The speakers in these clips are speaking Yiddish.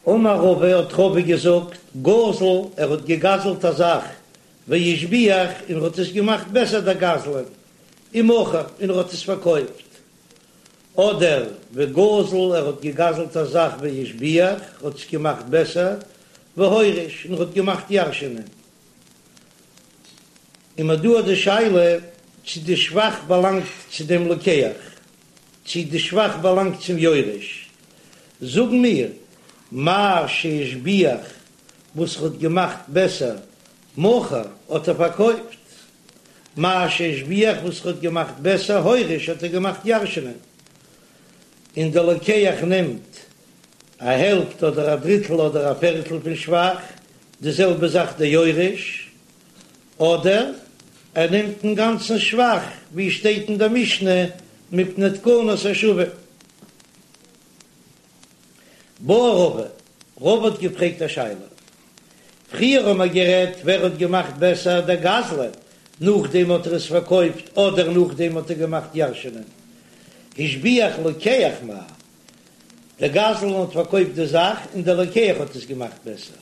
אמר רבא האט רבא געזאגט, גזל, ער האט געגזלט א זאך, והשביח, און ער האט עס געמאכט בעסער דער גזלן, ומכר, און ער האט עס פארקויפט. אדער וגזל, ער האט געגזלט א זאך והשביח, האט עס געמאכט בעסער, והוריש, און ער האט געמאכט ירש'ענען. און מ'האט דא די שאלה צו די שבח באלאנגט צו דעם לוקח, צו די שבח באלאנגט צום יורש. זאגן מיר, מה שהשביח וואס ער האט געמאכט בעסער, מכר, האט ער פארקויפט. מה שהשביח וואס ער האט געמאכט בעסער, הוריש, האט ער געמאכט ירש'נען. און דער לוקח נעמט א העלפט אדער א דריטל אדער א פערטל פון שבח, די זעלבע זאך דער יורש, אדער ער נעמט אינגאנצן שבח, ווי שטייט אין דער משנה מפני תקנת השבים. בעי רבא, רבא האט געפרעגט א שאלה. פריער האט מען גערעדט ווער האט געמאכט בעסער דער גזלן, נאכדעם האט ער עס פארקויפט אדער נאכדעם האט ער געמאכט ירש'נען. השביח לוקח מהו, דער גזלן האט פארקויפט די זאך און דער לוקח האט עס געמאכט בעסער.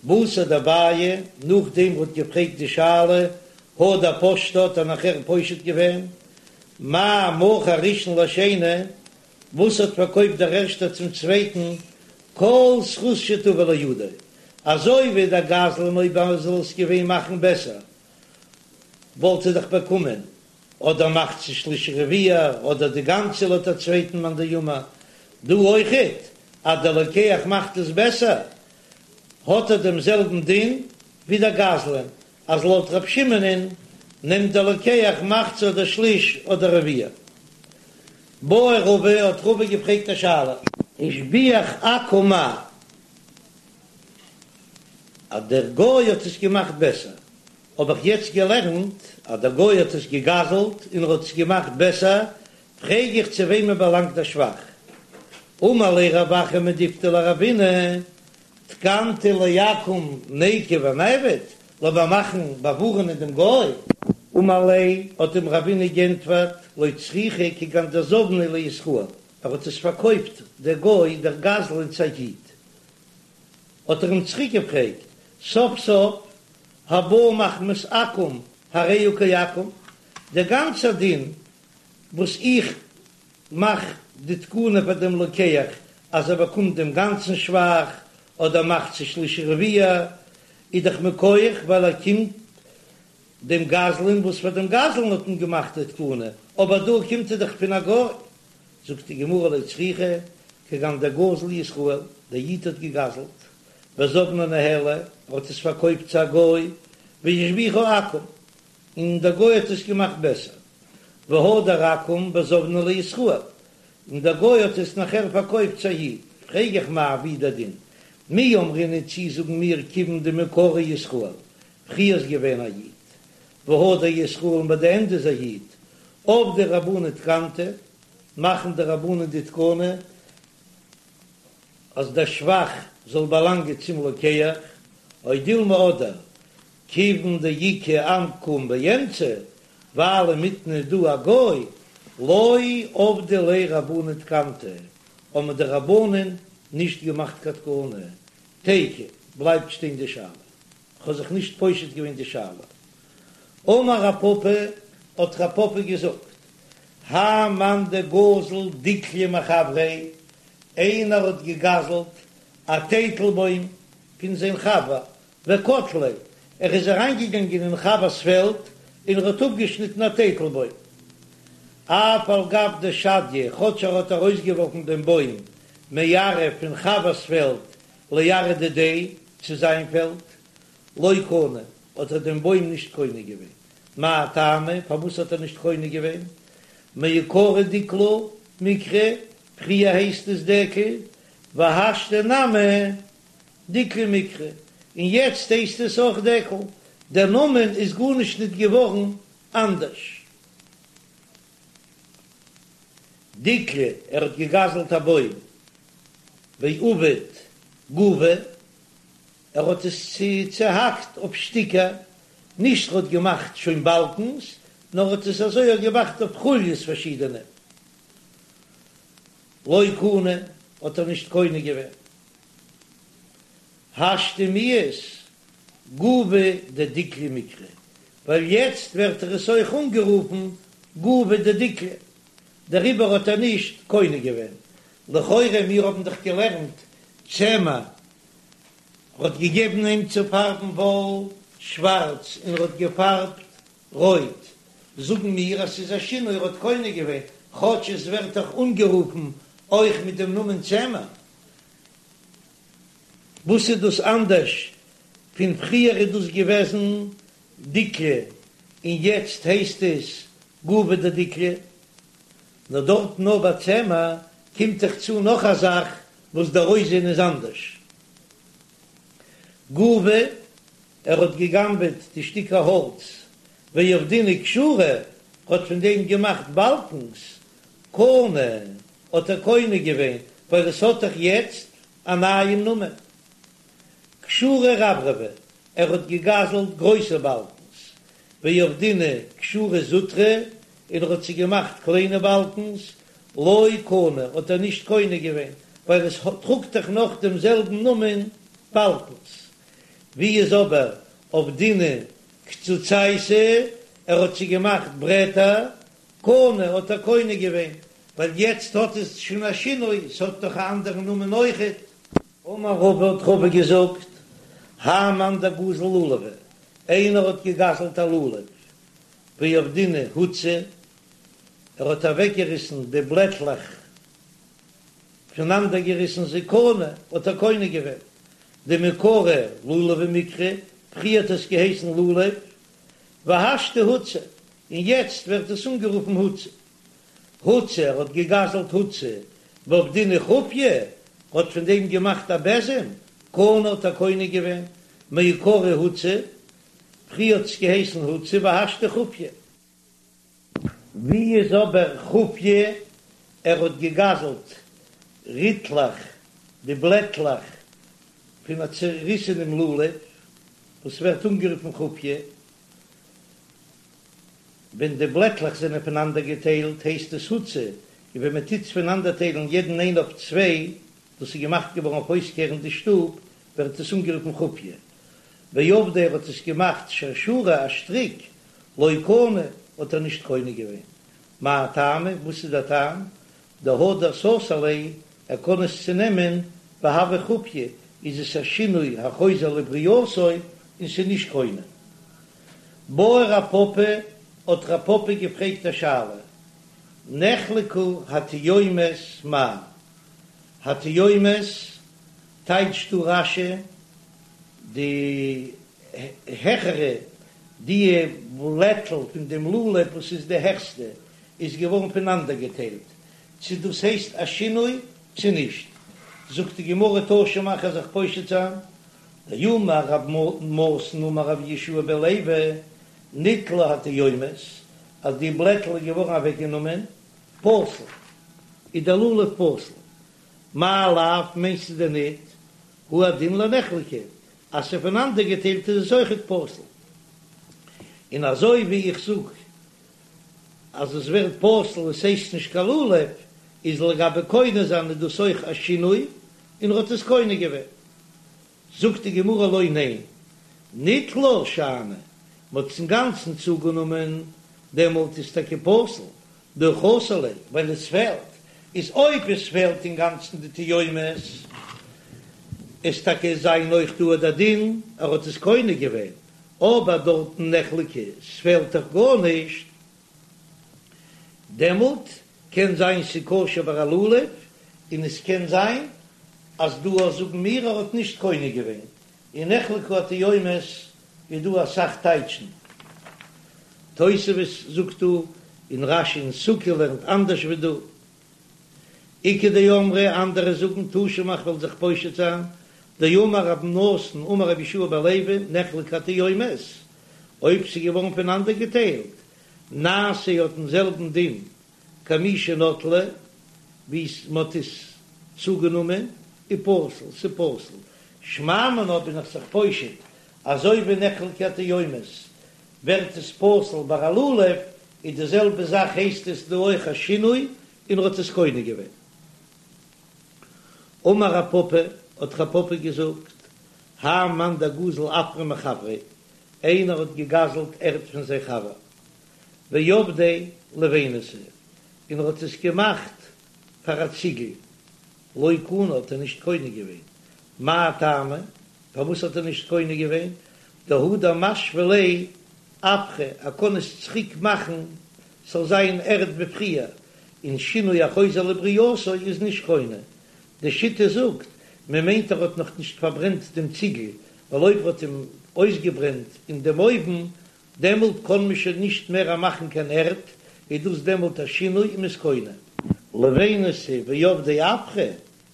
בתר דבעיא, נאכדעם ער האט געפרעגט די שאלה, הדר פשטה האט ער נאכער פושט געווען, מה מכר ראשון לשני, וואס האט פארקויפט דער ערשטער צום צווייטן, כל זכות שתבא לידו, אזוי ווי דער גזלן אויב ער זאל עס געווען מאכן בעסער וואלט ער דאך באקומען אדער מחצה שליש רביע אדער די גאנצע לויט א צווייטן מאן דאמר, דא אויכעט אז דער לוקח מאכט עס בעסער האט ער דעם זעלבן דין ווי דער גזלן, אז לויט ר' שמעונ'ען נעמט דער לוקח מחצה אדער שליש אדער רביע. בעי רבא האט רבא געפרעגט א שאלה. השביח עכו"ם מהו, אז דער גוי האט עס געמאכט בעסער, האב איך יעצט געלערנט אז דער גוי האט עס געגזלט און ער האט עס געמאכט בעסער, פרעג איך צו וועמען באלאנגט דער שבח? אמר ליה רב אחא מדיפתי לרבינא, תקנתא לעכו"ם ניקו ונעביד, לאמיר מאכן באווארענען דעם גוי. אמר ליה, האט אים רבינא גענטפערט, לא צריכא כגון דזבניה לישראל, ער האט עס פארקויפט דער גוי דער גזלן צו א איד, האט ער אים צוריק געפרעגט, סוף סוף הבא מחמת עכו"ם הרי הוא כעכו"ם, דער גאנצער דין וואס איך מאך די תקנה פאר דעם לוקח אז ער באקומט דעם גאנצן שבח אדער מחצה שליש רביע, איז דאך מכח ווייל ער קומט דעם גזלן וואס פאר דעם גזלן האט מען געמאכט די תקנה, אבער דא קומט ער דאך פון א גוי. זאגט די גמרא לא צריכא, כגון דגזל ישראל, דער איד האט געגזלט, וזבנה ניהליה, ער האט עס פארקויפט צו א גוי, והשביחה עכו"ם, און דער גוי האט עס געמאכט בעסער, והדר עכו"ם וזבנה לישראל, און דער גוי האט עס נאכער פארקויפט צו א איד, פרעג איך מאי ווי דער דין, מי אמרינן צי זאגן מיר כיוון דמעיקרא ישראל, פריער איז געווען א איד, והדר ישראל און ביי די ענדע איז א איד, עבדי רבנן תקנתא, מאכן די רבנן די תקנה אז דער שבח זאל באלאנגען צום לוקח, או דילמא אדער כיוון דאיכא עכו"ם באמצע, ווייל אינמיטן איז דא א גוי, לא עבדי ליה רבנן תקנתא, האבן די רבנן נישט געמאכט קיין תקנה, תיקו, בלייבט שטיין די שאלה. כ'האב זיך נישט פושט געווען די שאלה. אמר רב פפא, האט רב פפא געזאגט, האי מאן דגזל דיקלא מחבריה, איינער האט געגזלט א טייטלבוים פון זיין חבר, וקטליה, ער איז אריינגעגאנגען אין חבר'ס פעלד און ער האט אפגעשניטן א טייטלבוים. אף על גב דשדייה, כאטש ער האט ארויסגעווארפן דעם בוים מארעא פון חבר'ס פעלד לארעא דידיה, צו זיין פעלד, לא קנה, האט ער דעם בוים נישט קונה געווען. מאי טעמא, פארוואס האט ער נישט קונה געווען? מעיקרא דיקלא מיקרי, פריער הייסט עס דקל, והשתא נמי דיקלא מיקרי, און יעצט הייסט עס אויך דקל, דער נאמען איז גארנישט ניט געווארן אנדערש. דיקלא, ער האט געגזלט א בוים, ועבד גובי, ער האט עס צעהאקט אויף שטיקער, נישט ר'האט געמאכט שוין באלקנס, נאר האט עס אזוי אויך געמאכט אויף חוליות פארשידענע. לא קנה, האט ער נישט קונה געווען. השתא מיהת גובי דדיקלא מיקרי, ווייל יעצט ווערט ער עס אויך אנגערופן גובי דדיקלא, דעריבער האט ער נישט קונה געווען. לכאורה מיר האבן דאך געלערנט צמר האט געגעבן אים צו פארבן וואל שווארץ און ער האט געפארבט רויט, זאגן מיר אז ס'איז א שינוי ער האט קונה געווען, כאטש עס ווערט דאך אנגערופן אויך מיט דעם נאמען צמר. וואס איז דאס אנדערש פון פריער איז דאס געוועזן דיקלא און יעצט הייסט עס גובי דדיקלא? נאר דארט נאר ביי צמר קומט דאך צו נאך א זאך וואס דער אויסזען איז אנדערש. גובי, ער האט געגנבעט די שטיקער האלץ, ועבדינהו כשורי, האט פון דעם געמאכט באלקנס, קנה, האט ער קונה געווען, ווייל עס האט דאך יעצט א נייעם נאמען. כשורי רברבי, ער האט געגזלט גרויסע באלקנס, ועבדינהו כשורי זוטרי, און ער האט זיי געמאכט קליינע באלקנס, לא קנה, האט ער נישט קונה געווען, ווייל עס טראגט דאך נאך דעם זעלבן נאמען באלקנס. ווי איז אבער עבדינהו קצוצייתא, ער האט זיי געמאכט ברעטער, קנה, האט ער קונה געווען, ווייל יעצט האט עס שוין א שינוי, עס האט דאך א אנדערן נאמען אויכעט. אמר רבא האט רבא געזאגט, האי מאן דגזל לולבא, איינער האט געגזלט א לולב, ועבדינהו הוצי, ער האט אוועקגעריסן די בלעטלעך, פונאנדערגעריסן זיי, קנה, האט ער קונה געווען, דמעיקרא לולבא מיקרי, פריער האט עס געהייסן לולב, והשתא הוצי, און יעצט ווערט עס אנגערופן הוצי. הוצי, ער האט געגזלט הוצי, ועבדינהו חופיא, האט פון דעם געמאכט א בעזעם, קנה האט ער קונה געווען, מעיקרא הוצי, פריער האט עס געהייסן הוצי והשתא חופיא. ווי איז אבער חופיא? ער האט געגזלט ריטלעך, די בלעטלעך פון א צעריסענעם לולב, וואס ווערט אנגערופן חופיא. ווען די בלעטלעך זענען פונאנדערגעטיילט הייסט עס הוצי, און ווען מען טוט עס פונאנדערטיילן יעדן איין אויף צוויי, דאס איז געמאכט געווארן אויף אויסקערן די שטוב, ווערט עס אנגערופן חופיא. ועבדיה ער האט עס געמאכט שרשרא א שטריק, לא קנה, האט ער נישט קונה געווען. מאי טעמא, וואס איז דער טעם? דהדר סתר ליה, ער קען עס צונעמען, והוי חופיא, איז עס א שינוי החוזר לברייתו און ס'איז נישט קונה. בעי רב פפא, האט רב פפא געפרעגט א שאלה, נחלקו התיומות מהו? התיומות טייטשט דא רש"י די העכערע, די בלעטל פון דעם לולב וואס איז די העכסטע, איז געווארן פונאנדערגעטיילט, צו דאס הייסט א שינוי צו נישט, זאגט די גמרא תא שמע כ'וועל זיך פושט זיין, דאמר רב נתן אמר רבי יהושע בן לוי, ניטלו התיומות, אז די בלעטל איז געווארן אוועקגענומען, פסול, איז דער לולב פסול, מאי לאו מיינסטו דען ניט, הוא הדין לנחלקו, אז ס'איז פונאנדערגעטיילט איז עס אויכעט פסול, און אזוי ווי איך זאג אז עס ווערט פסול עס הייסט נישט קיין לולב, איז לגבי קונה זיין איז דאס אויך א שינוי, און ער האט עס קונה געווען. זאגט די גמרא לא ניין, ניטלה שאני, מ'האט עס אינגאנצן צוגענומען, דעמאלט איז טאקע פסול, דהא חסר ליה, ווייל עס פעלט, איז אויב עס פעלט אינגאנצן די תיומות, איז טאקע זיין אויך דא דער דין, ער האט עס קונה געווען, אבער דארטן נחלקו, ס'פעלט דאך גארנישט, דעמאלט קען זיין ס'כשר ביי א לולב, און עס קען זיין אז דא זאגן מיר ער האט נישט קונה געווען, אין נחלקו התיומות איז דא אסאך טייטשן, תוספות זאגט דא, און רש"י אין סוכה לערנט אנדערש ווי דא. איכא דאמרי, אנדערע זאגן תא שמע כ'וועל זיך פושט זיין, דאמר רב נתן אמר רבי יהושע בן לוי נחלקו התיומות, אויב ס'איז געווארן פונאנדערגעטיילט, נעשה האט דעם זעלבן דין כמי שנטלו, ווי מ'האט עס צוגענומען, ופסול, ס'פסול. שמע מינה בין איך זיך פושט, אזוי ווי נחלקו התיומות ווערט עס פסול ביי א לולב, איז די זעלבע זאך הייסט עס דא אויך א שינוי און ער האט עס קונה געווען. אמר רב פפא, האט רב פפא געזאגט, האי מאן דגזל עפרא מחבריה, איינער האט געגזלט ערד פון זיין חבר, ועבדיה לבינתא, און ער האט עס געמאכט פאר א ציגל, לא קנה האט ער נישט קונה געווען, מאי טעמא, פארוואס האט ער נישט קונה געווען, דהדר משוי ליה עפרא, ער קען עס צוריק מאכן ס'זאל זיין ערד ווי פריער, און שינוי החוזר לברייתו איז נישט קונה, די שיטה זאגט, מען מיינט ער האט נאך נישט פארברענט דעם ציגל, ווייל אויב ער האט אים אויסגעברענט אין דעם אויוון, דעמאלט קען מען שוין נישט מער מאכן קיין ערד, איז דאס דעמאלט א שינוי און מ'איז קונה. לבינתא ועבדיה עפרא,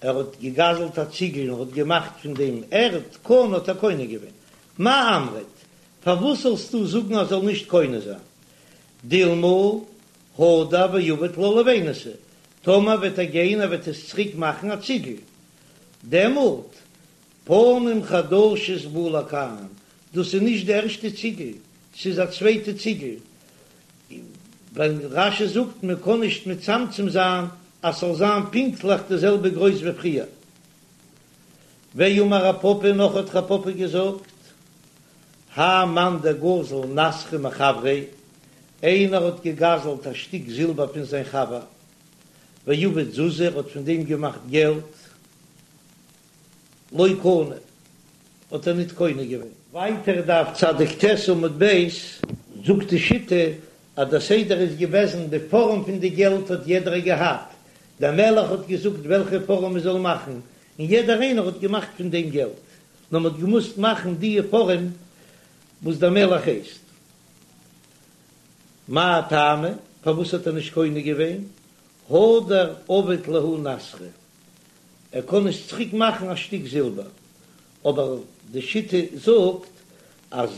ער האט געגזלט א ציגל און האט געמאכט פון דעם ערד, קנה האט ער קונה געווען. מאי אמרת, פארוואס זאלסטו זאגן אז זאל נישט קונה זיין? דילמא הדר ועביד לה לבינתא, טאמער וועט ער גיין ער וועט עס צוריק מאכן א ציגל, דעמאלט פנים חדשות באו לכאן, דאס איז נישט די ערשטע ציגל, ס'איז א צווייטע ציגל, ווייל רש"י זאגט מען קען נישט מצמצם זיין אז ס'זאל זיין פונקטליך די זעלבע גרויס ווי פריער. ואמר רב פפא נאך האט רב פפא געזאגט, האי מאן דגזל נסכא מחבריה, איינער האט געגזלט א שטיק זילבער פון זיין חבר, ועבד זוזי ער האט פון דעם געמאכט געלט, לא קנה, האט ער ניט קונה געווען. ווייטער דף צדיק ט עמוד ב', זאגט די שיטה אז דער סדר איז געוועזן די פארעם פון די געלט האט יעדער געהאט, דער מלך האט געזאגט וועלכע פארעם מען זאל מאכן, און יעדער איינער האט געמאכט פון דעם געלט, נאר מען האט געמוזט מאכן די פארעם וואס דער מלך הייסט. מאי טעמא, פארוואס האט ער נישט קונה געווען? הדר עביד להו נסכא, ער קען עס צוריק מאכן א שטיק זילבער, אבער די שיטה זאגט אז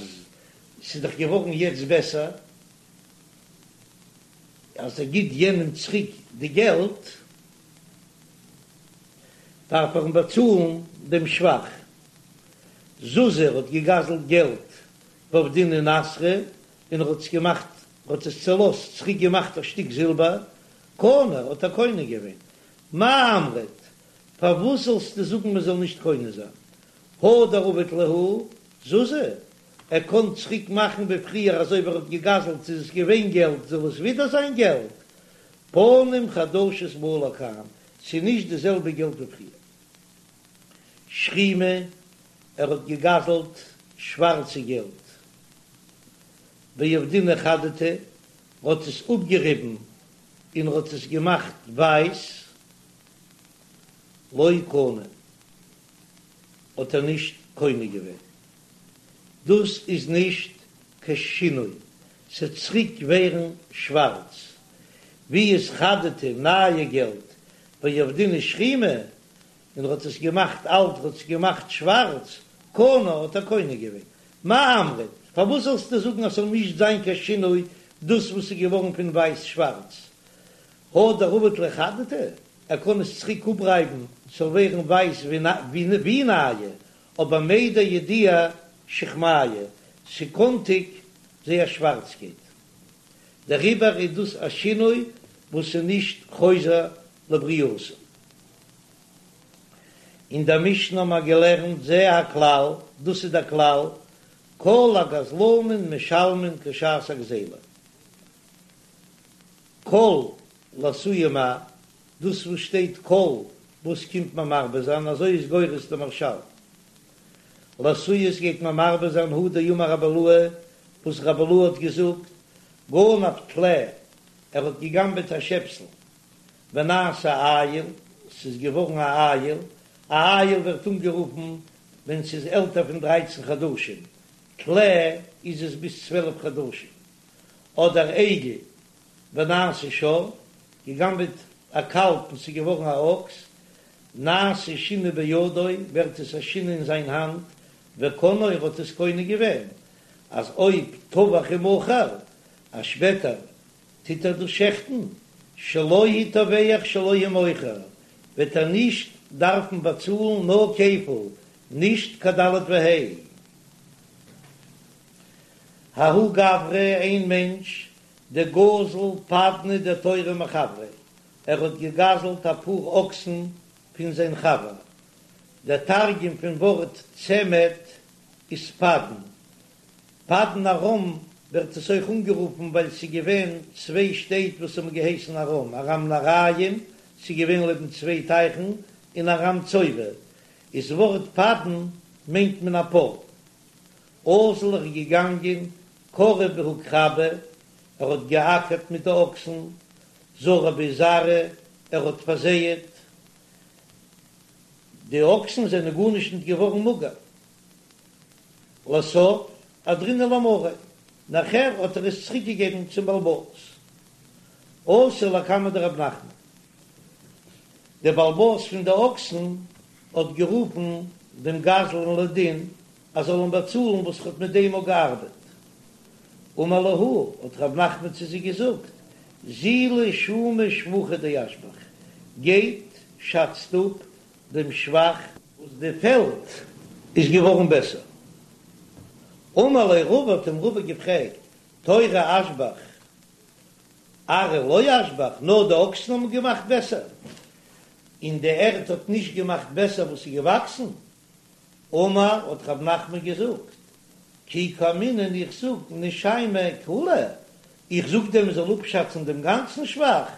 ס'איז דאך געווארן יעצט בעסער אז ער גיט יענעם צוריק די געלט, דארף ער אים באצאלן דעם שבח. זוזי האט געגזלט געלט ועבדינהו נסכא און ער האט עס געמאכט, ער האט עס צעלאזט, צוריק געמאכט א שטיק זילבער, קנה, האט ער קונה געווען. מאי אמרת, פארוואס זאלסטו זאגן מען זאל נישט קונה זיין? הדר עביד להו זוזי, ער קען צוריק מאכן ווי פריער אזוי ווי ער האט געגזלט איז עס געווען געלט זאל עס ווידער זיין געלט, פנים חדשות באו לכאן, ס'איז נישט די זעלבע געלט ווי פריער. שחימי, ער האט געגזלט שווארצע געלט. ועבדינהו חדתא, האט עס אפגעריבן און האט עס געמאכט ווייס. לא קנה, האט ער נישט קונה געווען. דאס איז נישט קיין שינוי, ס'עט צוריק ווערן שווארץ. ווי איז חדתא נייע געלט ועבדינהו שחימי, און ער האט עס געמאכט אלט, ער האט עס געמאכט שווארץ, קנה האט ער קונה געווען. מאי אמרת, פארוואס זאלסטו זאגן אז ס'זאל נישט זיין קיין שינוי דאס וואס איז געווארן פון ווייס שווארץ? הדר עביד ליה חדתא, ער קען עס צוריק אפרייבן ס'זאל ווערן ווייס ווי נייע, אבער מידע ידיע שחמיא, ס'קאנטיג זייער שווארצקייט. דעריבער איז דאס א שינוי וואס איז נישט חוזר לברייתו. אין דער משנה האבן מיר געלערנט זה הכלל, דאס איז דער כלל, כל הגזלנים משלמין כשעת הגזילה. כל לאתויי מאי, דאס וואס שטייט כל וואס קומט מען מרבה זיין, אזוי איז גורס דער מהרש"ל. לאתויי גייט מען מרבה זיין הא דאמר רבי אילעא, וואס רבי אילעא האט געזאגט, גנב טלה, ער האט געגנבעט א שעפסל, ונעשה איל, ס'איז געווארן א איל, א איל ווערט אנגערופן ווען ס'איז עלטער פון דרייצן חדשים, טלה איז עס ביז 12 חדשים, אדער עגל, ונעשה שור, געגנבעט א קאלב און ס'איז געווארן א אקס, נעשה שינוי בידו, ווערט עס א שינוי אין זיין האנט, וקנאו ער האט עס קונה געווען, אז אויב טבח ומכר, אז שפעטער טוט ער דאס שעכטן, שלו הוא טובח שלו הוא מוכר, וועט ער נישט דארפן באצאלן נאר כפל, נישט קיין ד' וה'. ההוא גברא, איין מענטש, דגזל פדנא דתורי מחבריה, ער האט געגזלט א פאר אקסן פון זיין חבר. דער תרגום פון ווארט צמד איז פדן. פדן ארם ווערט עס אויך אנגערופן ווייל ס'איז געווען צוויי שטעט וואס האבן געהייסן ארם, ארם נהריים, ס'איז געווען לעבן צוויי טייכן, און ארם צובה. איז ווארט פדן מיינט מען א פאר. אזל איז געגאנגען כרב בהו כרבא, ער האט געאקערט מיט די אקסן, זרע בהו זרעא, ער האט פארזייעט. די אקסן זענען גארנישט ניט געווארן מאגער. לסוף אהדרינהו למריה, נאכער האט ער עס צוריק געגעבן צום בעל הבית. אתא לקמיה דרב נחמן, דער בעל הבית פון די אקסן האט גערופן דעם גזלן לדין ער זאל אים באצאלן וואס ער האט מיט דעם אויך געארבעט. אמר להו, האט רב נחמן צו זיי געזאגט, זילו שומא שבחא דאשבח, גייט שאצט אפ דעם שבח וואס די פעלד איז געווארן בעסער. אמר ליה רבא, האט אים רבא געפרעגט, תורא אשבח ארעא לא אשבח, נאר די אקסן האבן געמאכט בעסער, און די ערד האט נישט געמאכט בעסער וואס איז געוואקסן? אמר, האט רב נחמן געזאגט, כי קאמינא איך זאג נשיימיה כוליה, איך זאג דען מען זאל אפשאצן דעם גאנצן שבח,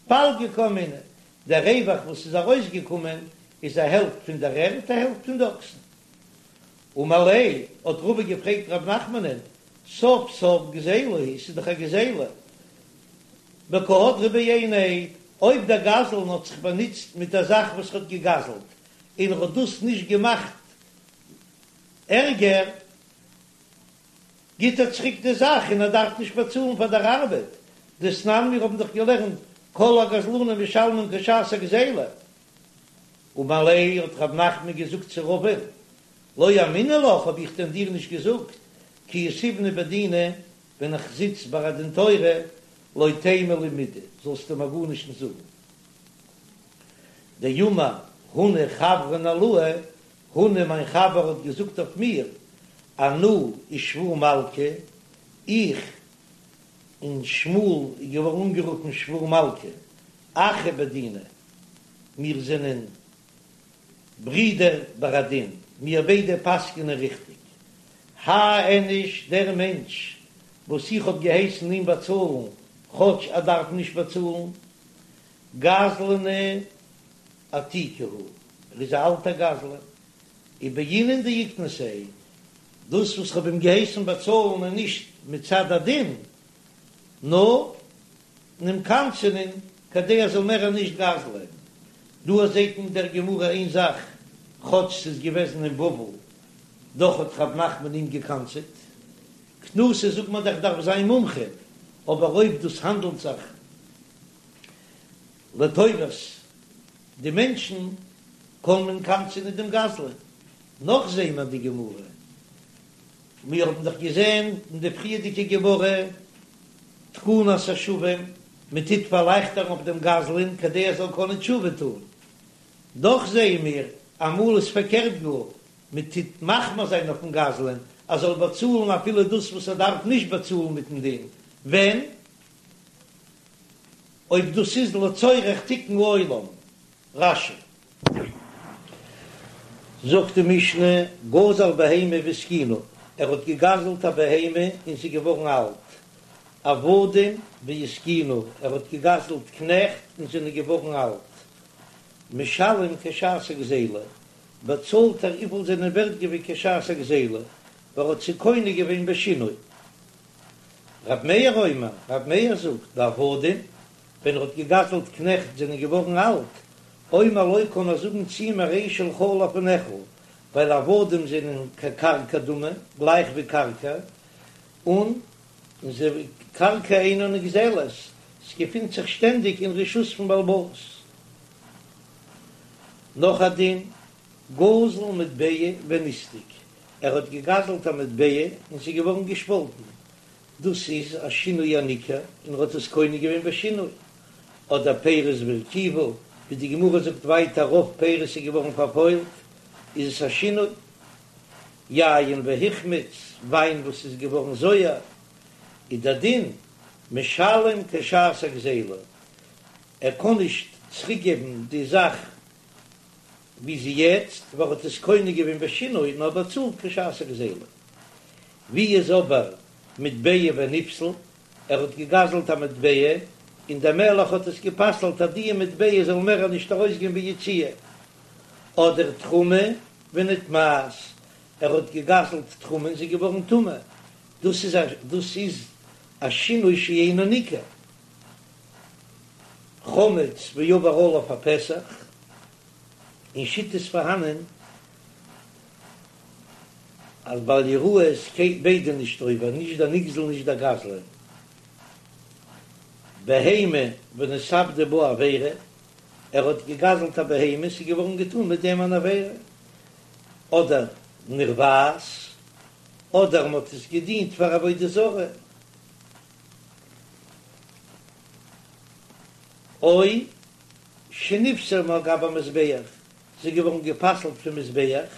פלגא קאמינא, דער רווח וואס איז ארויסגעקומען איז א העלפט פון דער ערד א העלפט פון די אקסן. אמר ליה, האט רבא געפרעגט רב נחמנ'ן, סוף סוף גזילה היא, ס'איז דאך א גזילה, וקא הדרה בעיניה, אויב דער גזלן האט זיך באנוצט מיט א זאך וואס ער האט געגזלט, און ער האט דאס נישט געמאכט ערגער, גיט ער צוריק די זאך און ער דארף נישט באצאלן פאר דער ארבעט, דתנן מיר האבן דאך געלערנט כל הגזלנים משלמים כשעת הגזילה. אמר ליה האט רב נחמן געזאגט צו רבא'ן, לא אמינא לך האב איך דען דיר נישט געזאגט, כי יתיבנא בדינא ווען איך זיץ ביי א דין תורה, לא תימא לי מידי זאלסטו מיר גארנישט נישט זאגן. דאמר הונא חברין עילאי, הונא מיין חבר האט געזאגט אויף מיר, אנא ושבור מלכא, איך און שמואל איז געווארן אנגערופן שבור מלכא, אחי בדינא, מיר זענען ברידער ביי א דין, מיר ביידע פסק'נען ריכטיג. האי איניש, דער מענטש וואס איך האב געהייסן אים באצאלן, כאטש ער דארף נישט באצאלן, גזלנא עתיקא הוא, ער איז א אלטער גזלן, ובעינן דאיקנסיה, דאס וואס כ'האב אים געהייסן באצאלן איז נישט מצד הדין, נאר אים קנס'ענען כדי ער זאל מער נישט גזל'ען. דא זעט אין דער גמרא איין זאך, כאטש ס'איז געוועזן אין בבל, דאך האט רב נחמן אים געקנס'עט. קנסות זאגט מען דאך דארף זיין מומחה, אבער אויב דאס האנדלט זיך לטובת די מענטשן קען מען קנס'ענען דעם גזלן. נאך זעהן מיר די גמרא, מיר האבן דאך געזעהן אין די פריערדיגע גמרא תקנת השבים, מען טוט פארלייכטערן אויף דעם גזלן כדי ער זאל קענען תשובה טון, דאך זעהן מיר אמאל איז פארקערט גאר, מען טוט מחמיר זיין אויפן גזלן ער זאל באצאלן אפילו דאס וואס ער דארף נישט באצאלן מיטן דין, ווען? אויב דאס איז לצורך תיקון העולם. רש"י. זאגט די משנה, גזל בהמה והזקינה, ער האט געגזלט א בהמה און ס'איז געווארן אלט, עבדים והזקינו, ער האט געגזלט קנעכט און זענען געווארן אלט, משלם כשעת הגזילה, באצאלט ער וויפיל זענען ווערט געווען כשעת הגזילה, ווייל ער האט זיי קונה געווען בשינוי. רב מאיר אומר, רב מאיר זאגט, בעבדים, ווען ער האט געגזלט קנעכט זענען געווארן אלט, אומר לו קען ער זאגן צו אים הרי שלך לפניך, ווייל עבדים זענען כקרקע דמי, גלייך ווי קרקע, און קרקע אינה נגזלת, ס'געפינט זיך שטענדיג אין רשות פון בעל הבית. נאך א דין, גזל מטבע ונסדק, ער האט געגזלט א מטבע און ס'איז געווארן געשפאלטן, דאס איז א שינוי הניכר און ער האט עס קונה געווען בשינוי, אדער פירות והרקיבו, ווי די גמרא זאגט ווייטער רוב פירות איז געווארן פארפוילט, איז עס א שינוי. יין והחמיץ, וויין וואס איז געווארן זויער, איז דער דין משלם כשעת הגזילה, ער קען נישט צוריקגעבן די זאך. ווי זי יעצט, ווייל ער האט עס קונה געווען בשינוי נאר באצאלט כשעת הגזילה. ווי איז אבער מטבע ונפסל, ער האט געגזלט א מטבע און דער מלך האט עס גע'פסל'ט אז די מטבע זאל מער נישט ארויסגיין ביציאה, אדער תרומה ונטמאת, ער האט געגזלט תרומה און זי איז געווארן טמא, דאס איז א דאס איז א שינוי שאינו ניכר. חמץ ועבר עליו הפסח, אין שיטות פארהאנען אז בל יראה איז ביידע נישט עובר, נישט דער נגזל נישט דער גזלן. בהמה ונתעבדה בה עבירה, ער האט געגזלט א בהמה, ס'איז געווארן געטאן מיט דעם אן עבירה, אדער נרבעת, אדער מ'האט עס געדינט פאר עבודה זרה. או שנפסלה מעל גבי המזבח, זי איז געווארן גע'פסל'ט פון מזבח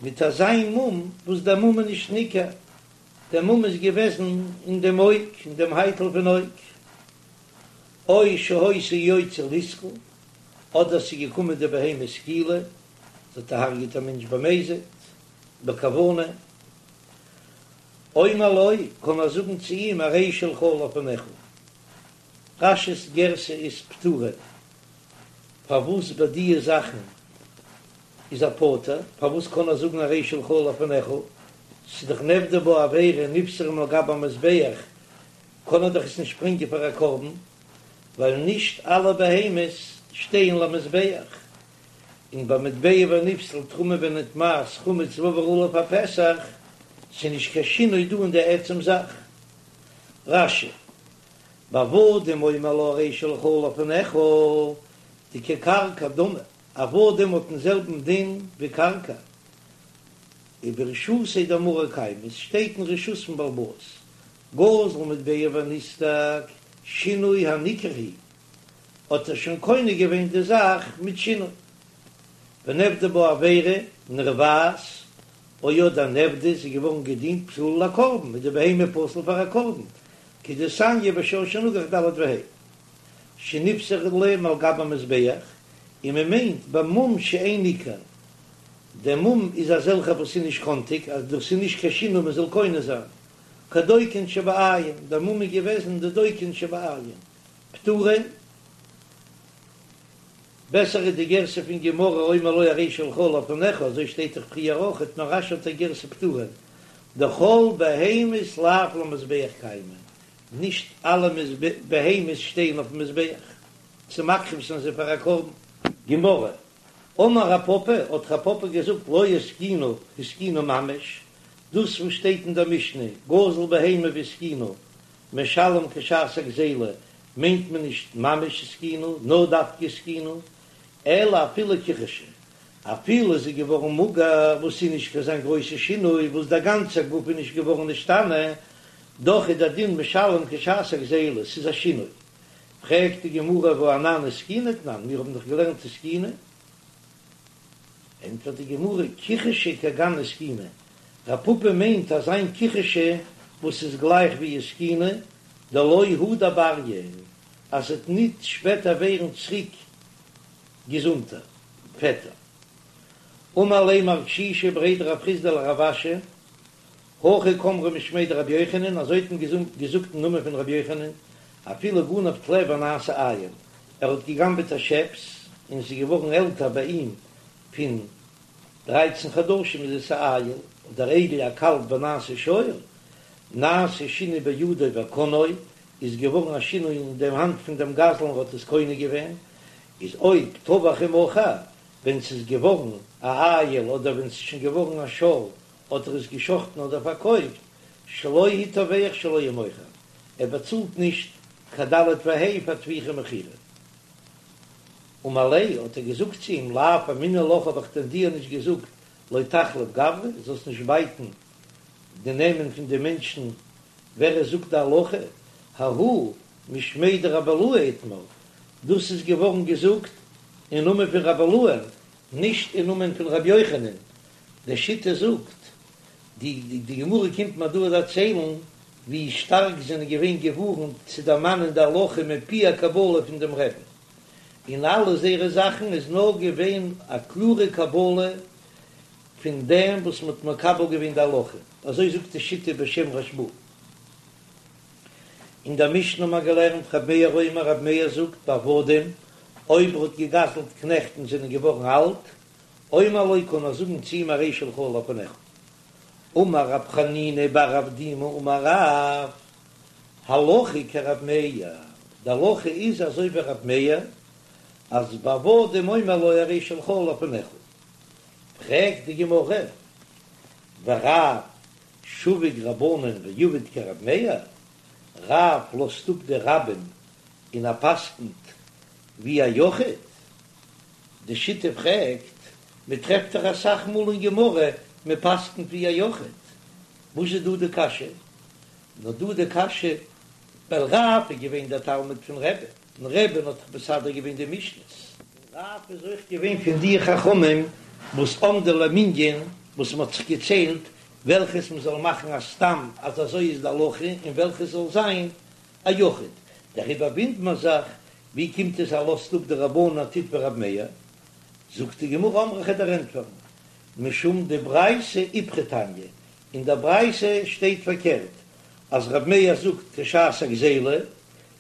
מיט אזא מום וואס דער מום איז נישט ניכר, דער מום איז געוועזן אין דעם אויג, אין דעם הייטל פון אויג. או שהיתה יוצאה ליסקל, אדער ס'איז געקומען די בהמה סקילה, זי האט געהארגעט א מענטש במזיד, בכוונה. אומר לו, קען ער זאגן צו אים הרי שלך לפניך. רש"י'ס גירסא איז פטורה, פארוואס ביי דיע זאכן איז ער פטור, פארוואס קען ער זאגן הרי שלך לפניך, ס'איז דאך נעבדה בה עבירה נפסלה מעל גבי המזבח, קען ער דאך עס נישט ברענגען פאר א קרבן, ווייל נישט אלע בהמות שטייען למזבח, און ביי מטבע ונפסל תרומה ונטמאת חמץ ועבר עליו הפסח, ס'איז נישט קיין שינוי דא אין די עצם זאך. רש"י, בעבדים אומר לו הרי שלך לפניך, דכקרקע דמי, עבדים האט דעם זעלבן דין ווי קרקע, וברשותיה דמרא קיימי, עס שטייט אין רשות פון בעל הבית, גזל מטבע ונסדק, שינוי הניכר הוא, האט ער שוין קונה געווען די זאך מיט שינוי. ונעבדה בה עבירה, נרבעת, או אדער נעבדה איז געווארן געדינט פסולה לקרבן, איז די בהמה פסול פאר א קרבן, כדתניא בשור שנגח ד' וה' שנפסלה מעל גבי המזבח, און מען מיינט במום שאין ניכר, דער מום איז אזעלכע וואס איז נישט קאנטיג אז דאס איז נישט קיין שינוי מען זאל קונה זיין, כדוקין שבעין, דער מום איז געוועזן די דוקין שבעין, פטורין. בעסער איז די גירסא פון גמרא אומר לו הרי שלך לפניך, אזוי שטייט דאך פריער אויכעט, נאר רש"י האט א גירסא פטורין, דכל בהמות לאו למזבח קיימי, נישט אלע בהמות שטייען אויפן מזבח צו מקריב זיין זיי פאר א קרבן. גמרא, אמר רב פפא, האט רב פפא געזאגט לא הזקינה הזקינה ממש, דאס וואס שטייט אין דער משנה גזל בהמה והזקינה משלם כשעת הגזילה מיינט מען נישט ממש הזקינה, נאר דווקא הזקינה, אלא אפילו כחשה, אפילו איז זי געווארן מאגער, וואס איז נישט קיין אזא גרויסע שינוי, וואס דער גאנצער גוף איז נישט געווארן נשתנה, דאך איז דער דין משלם כשעת הגזילה, ס'איז א שינוי. פרעגט די גמרא והא אנן הזקינה תנן, מיר האבן דאך געלערנט הזקינה. ענטפערט די גמרא, כחשה כגון הזקינה, רב פפא מיינט אזא מין כחשה וואס איז גלייך ווי הזקינה, דלא הדר בריא, אז ס'עט ניט שפעטער ווערן צוריק געזונטער, פעטער. אמר ליה מר קשישא בריה דרב חסדא לרב אשי, הכי קאמרי משמיה דרבי יוחנן, אזוי האט מען געזאגט אין נאמען פון רבי יוחנן, אפילו גנב טלה ונעשה איל, ער האט געגנבעט א שעפס און ס'איז געווארן עלטער ביי אים פון דרייצן חדשים איז עס א איל, אדער עגל א קאלב ונעשה שור, נעשה שינוי בידו וקנאו, איז געווארן א שינוי אין דעם האנט פון דעם גזלן ער האט עס קונה געווען, איז אויב טבח ומכר, ווען ס'איז געווארן א איל אדער ווען ס'איז שוין געווארן א שור האט ער עס געשחטן אדער פארקויפט, שלו הוא טובח שלו הוא מוכר, ער באצאלט נישט קיין ד' וה' פאר טביחה ומכירה. אמר ליה, האט ער געזאגט צו אים, לאו אמינא לך האב איך דען דיר נישט געזאגט לא תחליף גברי, זאלסט נישט בייטן די נעמען פון די מענטשן ווער עס זאגט די הלכה, ההוא משמיה דרבי אילעא איתמר, דאס איז געווארן געזאגט אין נאמען פון רבי אילעא'ן, נישט אין נאמען פון רבי יוחנן, די שיטה זאגט, די די גמרא קומט מיר דא דערציילן ווי שטארק זענען געווען געווארנט צו דערמאנען די הלכה מפי הקבלה פון דעם רבי'ן. אין אלע זייערע זאכן איז נאר געווען א קלארע קבלה פון דעם וואס מ'האט מקבל געווען די הלכה, אזוי זאגט די שיטה בשם רשב"א. אין דער משנה האט מען געלערנט ר' מאיר אומר ר' מאיר זאגט בעבדים, אויב ער האט געגזלט קנעכט און זענען געווארן אלט, אומר לו קען ער זאגן צו אים הרי שלך לפניך. אמר רב חנינא בר אבדימי אמר רב, הלכה כרב מאיר, די הלכה איז אזוי ווי רב מאיר, אז בעבדים אומר לו הרי שלך לפניך. פרעגט די גמרא, ורב שביק רבנן ועביד כרב מאיר, רב לאזט אפ די רבים און ער פסקנט ווי א יחיד? די שיטה פרעגט, מען טרעפט דאך אסאך מאל אין גמרא מען פסקנט ווי א יחיד, וואס איז דא די קשיא? נאר דא די קשיא ווייל רב איז געווען דער תלמיד פון רבי'ן, און רבי'ן האט דאך מסדר געווען די משניות. און רב איז אויך געווען פון די חכמים וואס עמדו למנין, וואס מען האט זיך געציילט וועלכעס מען זאל מאכן א סתם אז אזוי איז די הלכה און וועלכעס זאל זיין א יחיד, דעריבער וואונדערט מען זיך ווי קומט עס ער לאזט אפ די רבנן און טוט ווי רב מאיר, זאגט די גמרא אמרי כ'וועל דיר ענטפערן משום דברייתא איפכא תניא, אין דער ברייתא שטייט פארקערט אז רב מאיר זאגט כשעת הגזילה,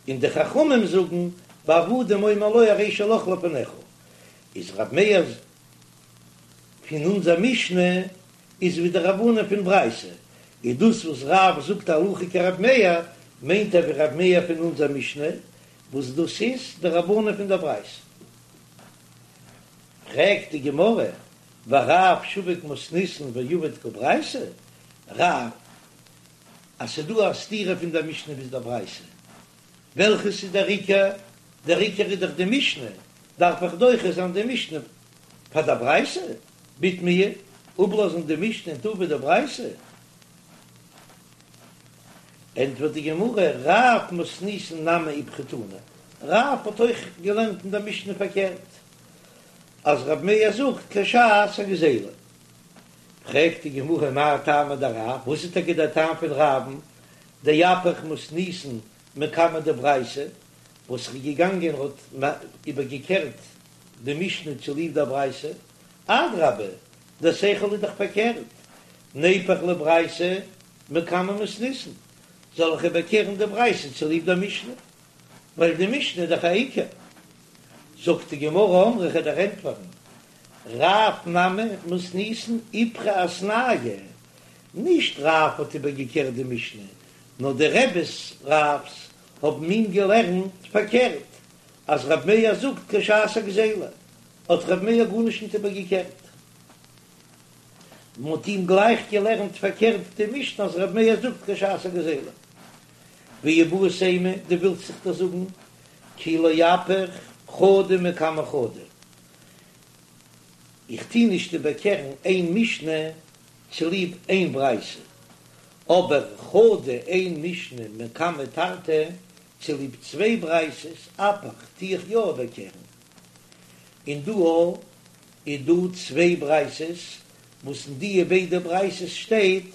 און די חכמים זאגן בעבדים אומר לו הרי שלך לפניך, איז רב מאיר פון אונזער משנה איז ווי די רבנן פון ברייתא, איז דאס וואס רב זאגט הלכה כרב מאיר מיינט ער ווי רב מאיר פון אונזער משנה, וואס דאס איז די רבנן פון דער ברייתא. פרעגט די גמרא, ורב שביק מתניתין ועביד כברייתא, רב, אז ס'איז דא א סתירה פון דער משנה ביז דער ברייתא, וועלכעס איז דער עיקר? דער עיקר איז דאך די משנה, דארף איך דוחה זיין די משנה פאר דער ברייתא? בתמיה, אפלאזן די משנה און טון ווי די ברייתא? ענטפערט די גמרא, רב מתניתין נמי איפכא תנא, רב האט אויך געלערנט אין דער משנה פארקערט, אז רב מאיר זאגט כשעת הגזילה. פרעגט די גמרא מאי טעמא דרב, וואס איז טאקע דער טעם פון רב'ן, דאפיך מתניתין מקמי דברייתא, וואס איז געגאנגען האט איבערגעקערט די משנה צוליב דער ברייתא, אדרבה, דער שכל איז דאך פארקערט, ניפוך לברייתא מקמי מתניתין, זאל איך איבערקערן די ברייתא צוליב דער משנה, ווייל די משנה איז דאך א עיקר. זאגט די גמרא אמרי כ'וועל דיר ענטפערן, רב נמי מתניתין איפכא אתנייה, נישט רב האט איבערגעקערט די משנה, נאר די רביס רב'ס האבן אים געלערנט פארקערט, אז רב מאיר זאגט כשעת הגזילה, האט רב מאיר גארנישט ניט איבערגעקערט. מען האט אים גלייך געלערנט פארקערט די משנה אז רב מאיר זאגט כשעת הגזילה. ואיבעית אימא, דו ווילסט זיך דאס זאגן כי לא אפיך חדא מקמי חדא. איך טוה נישט איבערקערן איין משנה צוליב איין ברייתא, אבער חדא איין משנה מקמי תרתי צוליב צוויי ברייתות אפיך טוה איך יא איבערקערן. און דא איז דא צוויי ברייתות וואס אין דיע ביידע ברייתות שטייט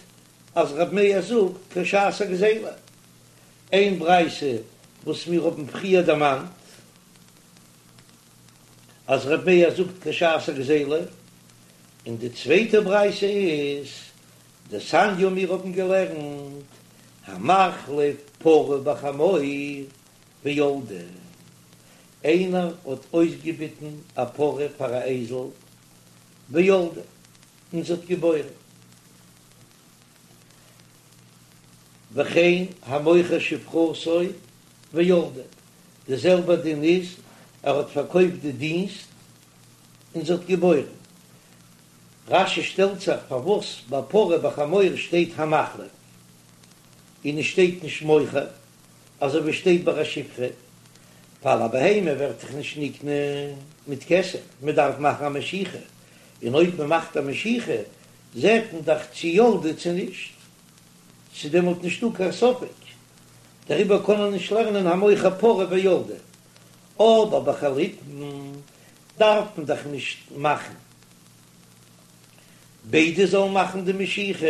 אז רב מאיר זאגט כשעת הגזילה. איין ברייתא וואס מיר האבן פריער דערמאנט אז רב מאיר זאגט כשעת הגזילה, און די צווייטע ברייתא איז דתניא מיר האבן געלערנט המחליף פרה בחמור וילדה, איינער האט אויסגעביטן א פרה פאר א אייזל וילדה און זי האט געבוירן. וכן המוכר שפחתו וילדה, די זעלבע דין איז ער האט פארקויפט די דינסט און זי האט געבוירן. רש"י שטעלט זיך פארוואס ביי פרה בחמור שטייט המחליף און עס שטייט נישט מוכר אזוי ווי שטייט ביי א שפחה, ווייל א בהמה ווערט דאך נישט נקנה מיט כסף, מען דארף מאכן א משיכה, און אויב מען מאכט א משיכה זעט מען דאך צו ילדה צו נישט, ס'איז דעמאלט נישטא קיין ספק, דעריבער קען מען נישט לערנען המוכר פרה וילדה, אבער ביי חליפין דארף מען דאך נישט מאכן ביידע זאלן מאכן די משיכה,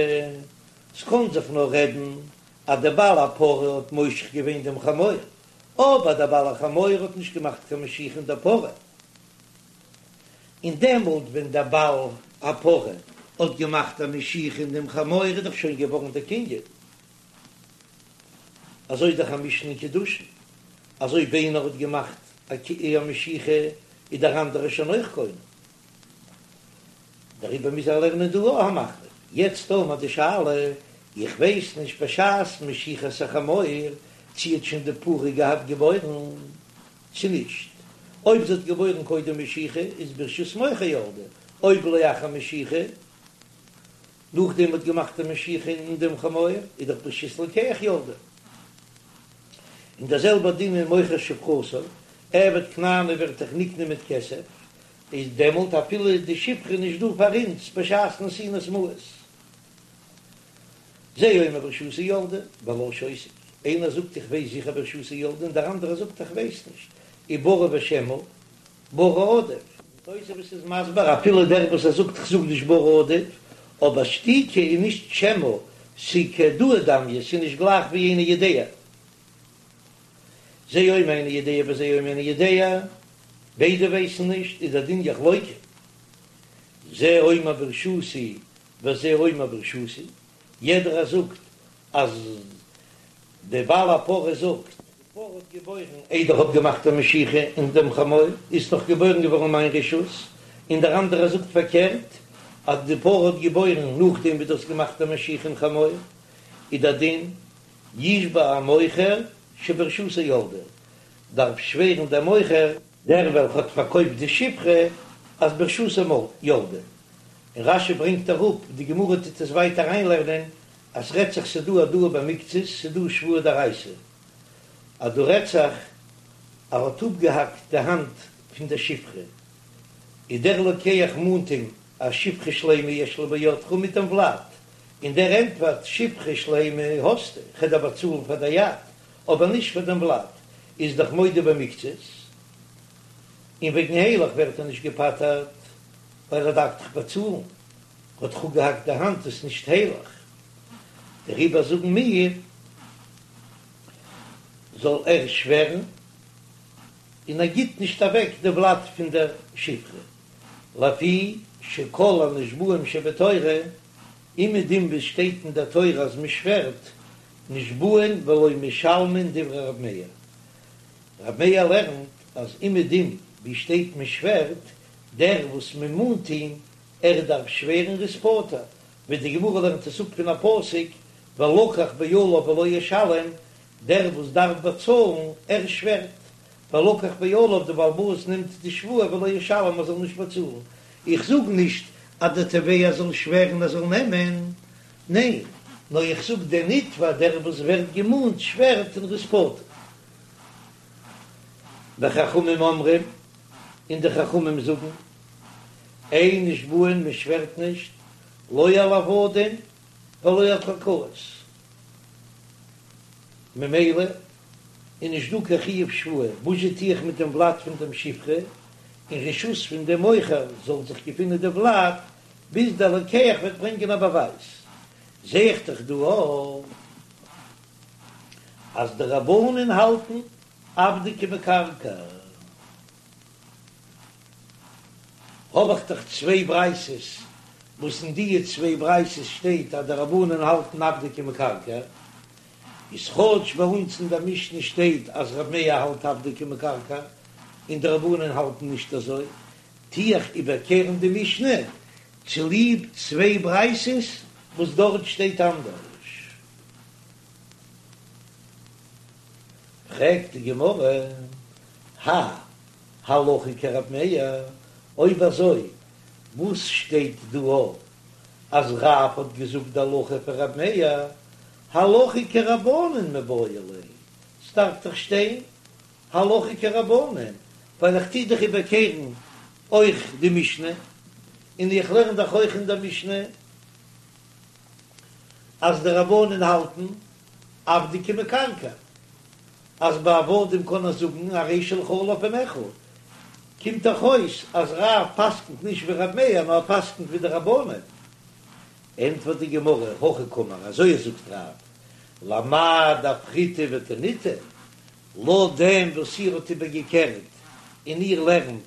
ס'קען זיך נאר רעדן אז דער בעל הפרה האט מושך געווען דעם חמור, אבער דער בעל החמור האט נישט געמאכט קיין משיכה אין דער פרה, און דעמאלט ווען דער בעל הפרה האט געמאכט א משיכה אין דעם חמור איז דאך שוין געווארן דער קנין. אזוי איז דאך א משנה אין קידושין, אז אויב איינער האט געמאכט א משיכה איז דער אנדערער שוין אויך קונה. דעריבער מוז ער לערנען דא אויך המחליף. יעצט האבן מיר די שאלה, איך ווייס נישט בשעת משיכת החמור צי האט שוין די פרה געהאט געבוירן צו נישט, אויב זי האט געבוירן קודם משיכה איז ברשות מוכר ילדה, אויב לאחר משיכה, נאכדעם מ'האט געמאכט א משיכה אין דעם חמור, איז דאך ברשות לוקח ילדה. און דער זעלבער דין אין מוכר שפחתו, עבד כנעני ווערט דאך נקנה מיט כסף, איז דעמאלט אפילו די שפחה נישט דא פאר אונז בשעת נתינת מעות. זה אומר ברשותי ילדה, והלה שותק, איינער זאגט איך ווייס זיכער ברשותי ילדה און דער אנדערער זאגט איך ווייס נישט, ובריא ושמא, בריא עדיף. תוספות איז מסביר אפילו דער וואס ער זאגט כ'זאג נישט בריא עדיף, אבער שתיקה איז נישט שמא, ס'איז כהודאה דמיא, ס'איז נישט גלייך ווי איני יודע. זה אומר איני יודע וזה אומר איני יודע, ביידע ווייסן נישט, איז דער דין יחלוקו. זה אומר ברשותי וזה אומר ברשותי, יעדער זאגט אז דער בעל הפרה זאגט, די פרה האט געבוירן איידער כ'האב געמאכט א משיכה אין דעם חמור, איז דאך געבוירן געווארן אין מיין רשות, און דער אנדערער זאגט פארקערט, אז די פרה האט געבוירן נאכדעם ווי דו האסט געמאכט א משיכה אין חמור, איז דער דין, ישבע המוכר שברשותו ילדה, דארף שווערן דער מוכר, דער וועלכע האט פארקויפט די שפחה, אז ברשותו ילדה, און רש"י ברענגט אראפ, די גמרא טוט עס ווייטער אריינלערנען, אז ס'רעדט זיך ס'דא הודאה במקצת, ס'דא שבועה דאורייתא, אז דא רעדט זיך ער האט אפגעהאקט די האנט פון דער שפחה, איז דער לוקח מאנט אים א שפחה שלימה יש לי בידך מיט דעם ולד, און דער ענטפערט שפחה שלימה האסטו, כ'וועל דיר באצאלן פאר דער יד, אבער נישט פאר דעם ולד, איז דאך מודה במקצת, און וועגן הילך ווערט ער נישט געפטר'ט, ווייל ער דארף דאך באצאלן, האט דאך אפגעהאקט די האנט איז נישט הילך, דעריבער זאגן מיר זאל ער שווערן, און ער גיט נישט אוועק די ולד פון דער שפחה, לפי שכל הנשבעים שבתורה, אומעדום וואו עס שטייט אין דער תורה אז מען שווערט, נשבעין ולא משלמין דברי רב מאיר. רב מאיר לערנט אז אומעדום וואו שטייט מען שווערט, דער וואס מען מאנט אים, ער דארף שווערן ער איז פטור, ווי די גמרא לערנט עס אפ פון א פסוק ולקח בעליו ולא ישלם, דער וואס דארף באצאלן, ער שווערט, ולקח בעליו, די בעל הבית נעמט די שבועה ולא ישלם ער זאל נישט באצאלן, איך זאג נישט אז דער תובע זאל שווערן ער זאל נעמען, ניין, נאר איך זאג דער נתבע דער וואס ווערט געמאנט שווערט און ער איז פטור. וחכמים אומרים, און די חכמים זאגן, אין נשבעין מען שווערט נישט, לא על עבדים ולא על קרקעות, ממילא איז נישט דא קיין חיוב שבועה, וואס זשע טו איך מיט דעם ולד פון דעם שפחה, אין רשות פון דעם מוכר זאל זיך געפינען די ולד, ביז דער לוקח וועט ברענגען א באווייז, זע איך דאך דא אויך אז די רבנן האלטן עבדא כמקרקעי. האב איך דאך צוויי ברייתות, וואס אין דיע צוויי ברייתות שטייט אז די רבנן האלטן עבדא כמקרקעי, איז כאטש ביי אונז אין דער משנה שטייט אז רב מאיר האלט עבדא כמקרקעי און די רבנן האלטן נישט אזוי, טו איך איבערקערן די משנה צוליב צוויי ברייתות וואס דארט שטייט אנדערש. פרעגט די גמרא, האי הלכה כרב מאיר, אויב אזוי וואס שטייט דא אז רב האט געזאגט די הלכה פון רב מאיר, הלכה כרבנן מיבעי ליה, ס'דארף דאך שטיין הלכה כרבנן, ווייל איך טוה דאך איבערקערן אויך די משנה, און איך לערן דאך אויך אין דער משנה אז די רבנן האלטן עבדא כמקרקעי, אז ביי עבדים קען ער זאגן הרי שלך לפניך, קומט דאך אויס אז רב פסק'נט נישט ווי רב מאיר נאר ער פסק'נט ווי די רבנן. ענטפערט די גמרא, הכי קאמר, אזוי זאגט רב, למאי דאפכיתו ותניתו? לויט דעם וואס איר האט איבערגעקערט און איר לערנט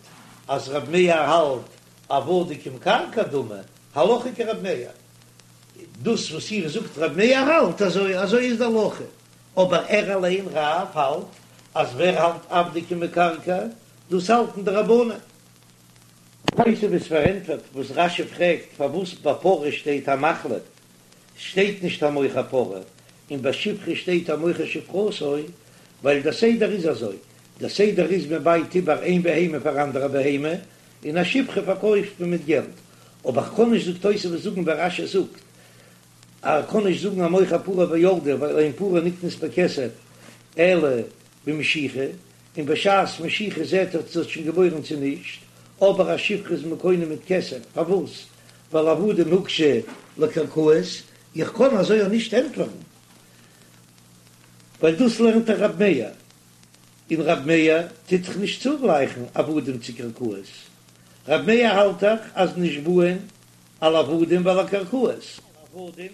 אז רב מאיר האלט עבדים כמקרקעי דמי, הלכה כרב מאיר. דאס וואס איר זאגט רב מאיר האלט אזוי, אזוי איז די הלכה, אבער ער אליין רב האלט אז ווער האלט עבדי כמקרקעי, דאס האלטן די רבנן. תוספות פארענטפערט וואס רש"י פרעגט פארוואס ביי פרה שטייט המחליף שטייט נישט המוכר פרה און ביי שפחה שטייט המוכר שפחתו, ווייל דער סדר איז אזוי, דער סדר איז מען בייט איבער איין בהמה פאר אנדערע בהמה, און א שפחה פארקויפט מען מיט געלט, אבער כ'קען נישט זאגט תוספות זאגן ווי רש"י זאגט אז כ'קען נישט זאגן המוכר פרה וילדה ווייל אין פרה נקנית בכסף אלא במשיכה, און בשעת משיכה זעהט ער צו ס'האט שוין געבוירן צו נישט, אבער א שפחה איז מען קונה מיט כסף, פארוואס? ווייל עבדים הוקשו לקרקעות, איך קען אזוי אויך נישט ענטפערן, ווייל דאס לערנט דאך רב מאיר, און רב מאיר טוט דאך נישט צוגלייכן עבדים צו קרקעות, רב מאיר האלט דאך אז נשבעין על עבדים ועל הקרקעות. עבדים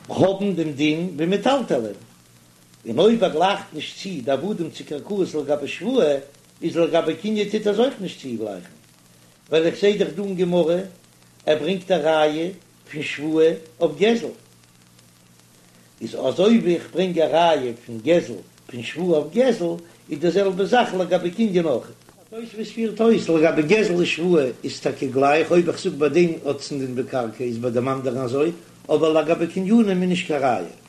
האבן דעם דין ווי מטלטלין, און אויב ער גלייכט נישט צו די עבדים צו קרקעות לגבי שבועה, איז לגבי קנין טוט ער עס אויך נישט צוגלייכן, ווייל איך זעה דאך דא אין גמרא ער ברענגט א ראיה פון שבועה אויף גזל, איז אזוי ווי איך ברענג א ראיה פון גזל פון שבועה אויף גזל, איז די זעלבע זאך לגבי קנין אויך. תוספות פירט אויס, לגבי גזל און שבועה איז טאקע גלייך, אויב איך זאג ביי דעם האט עס א דין ווי קרקע איז ביי דעם אנדערן אזוי, אבער לגבי קנינים איז נישט קיין ראיה.